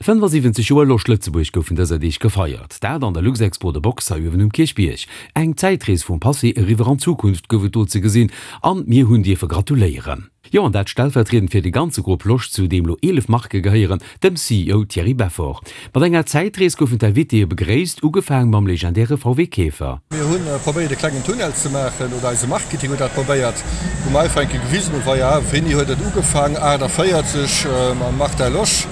75 Joer Losch Lëtzebuerg goufen dëser Deeg gefeiert. Dat an der Luxexpo de Box hei uewen um Kierchbierg. Eng Zäitrees vum Passé eriwwer an d'Zukunft gouf et do ze gesinn an mir hunn dierfe gratuléieren. Jo, an dat stellvertriedend fir de ganze Grupp Losch, zu deem lo 11 Marke gehéieren, dem CEO Thierry Beffort. Mat enger Zäitrees goufen d'Invitéë begréisst, ugefaang mam legendäre VW Käfer. Mir hu probéiert e klengen Tunnel ze maachen, oder eise Marketing huet dat probéiert, wou mer einfach eng Kéier gewisen hunn, voila, wéini huet et ugefaang, 48 mam Martin Losch,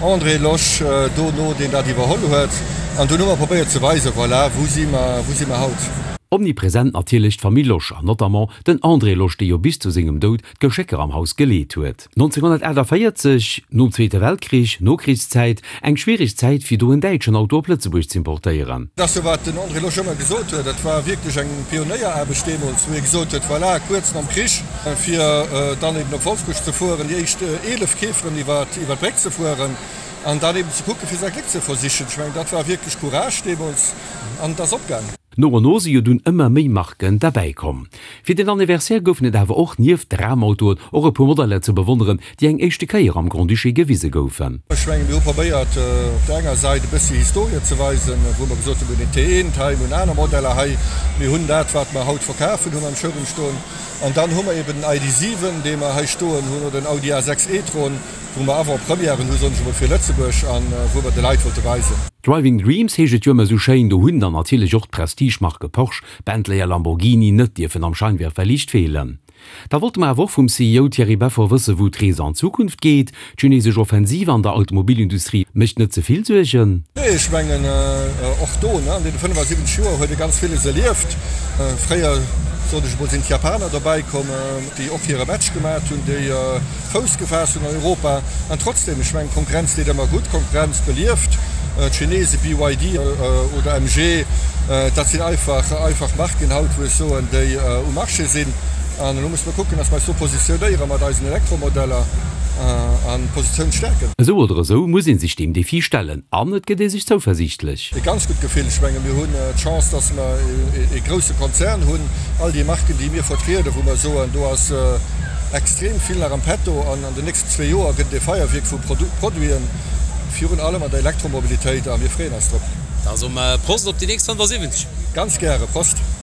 André Losch dono, deen dat iwwerholl huet. An dunn hu mer probéiert ze weisen, voilà, wou si mer, wou si mer haut. Omnipresent natierlech d'Famill Losch an notamment den André Losch, dee jo bis zu sengem Doud d'Geschécker am Haus geleet huet. 1948, nom Zweete Weltkrich, Nokrichszäit, eng schwiereg Zäit fir do en däitschen Auto op Lëtzebuerg z'importéieren. Dat ass jo wat den André Losch ëmmer gesot huet, dat war wierklech eng Pionéieraarbecht deemools, wou hie gesot huet, voilà, kuerz nom Krich, fir dann eben op Wolfsbuerg ze fueren, déi éischt 11 Käferen iwwer d'Bréck ze fueren an dann eben ze kucken, fir säi Gléck ze versichen. Ech mengen, dat war wierklech Courage deemools an et ass opgaang. No an no si jo dunn ëmmer méi Marken derbäi komm. Fir den Anniversaire goufen et awer och nieft Dramautoen och e puer Modeller ze bewonneren, déi eng éischte Kéier am Grand-Duché gewise goufen. Ech mengen, mir hu probéiert, op der enger Säit e bëssi Historie ze weisen, wou mer gesot hunn, mir hunn een T1 hei, mir hunn aner Modeller hei, mir hunn dat, wat mer haut verkafen, hu mer am Showroom stoen. An dann hu mer eben den ID. 7, dee mer hei stoen hunn, oder den Audi A6 e-tron, wou mer Avant-premièren hu, soen ech emol, fir Lëtzebuerg a wou mer de Leit wollte weisen. Driving Dreams heescht et jo ëmmer esou schéin, do hunn dann natierlech och d'Prestige-Marke Porsche, Bentley a Lamborghini net dierfen am Scheinwerferliicht feelen. Da wollte mer awer och vum CEO Thierry Beffort wëssen, wou d'Rees an Zukunft geet. D'chinesesch Offensiv an der Automobilindustrie mécht net ze vill Suergen? Nee, ech mengen och do, an deene 75 Joer huet ee ganz villes erlieft. Fréier, sot ech emol, sinn d'Japaner dobäi komm, déi och hire Match gemat hunn, déi Fouss gefaasst hunn an Europa. An trotzdem, ech mengen, Konkurrenz deet ëmmer gutt, Konkurrenz belieft. D'Chinese, BYD oder MG, dat sinn einfach, einfach Marken haut, wou ech soen, déi um Marché sinn. An elo musse mer kucken, dass mer eis do positionéiere mat eisen Elektromodeller an d'Positioun stäerken. Esou oder esou muss ee sech deem Defi stellen an et gëtt ee sech zouversiichtlech. E ganz gutt Gefill. Ech menge mir hunn d'Chance, dass mer e grousse Konzern hunn. All déi Marken, déi mir vertrieden, wou mer soen, do ass extrem vill nach am Petto an an den nächsten zwee Joer gëtt et e Feierwierk vu Produiten, virun allem an der Elektromobilitéit a mir freeën eis drop. Da soe mer Prost op déi nächst 75. Ganz gäre, Prost!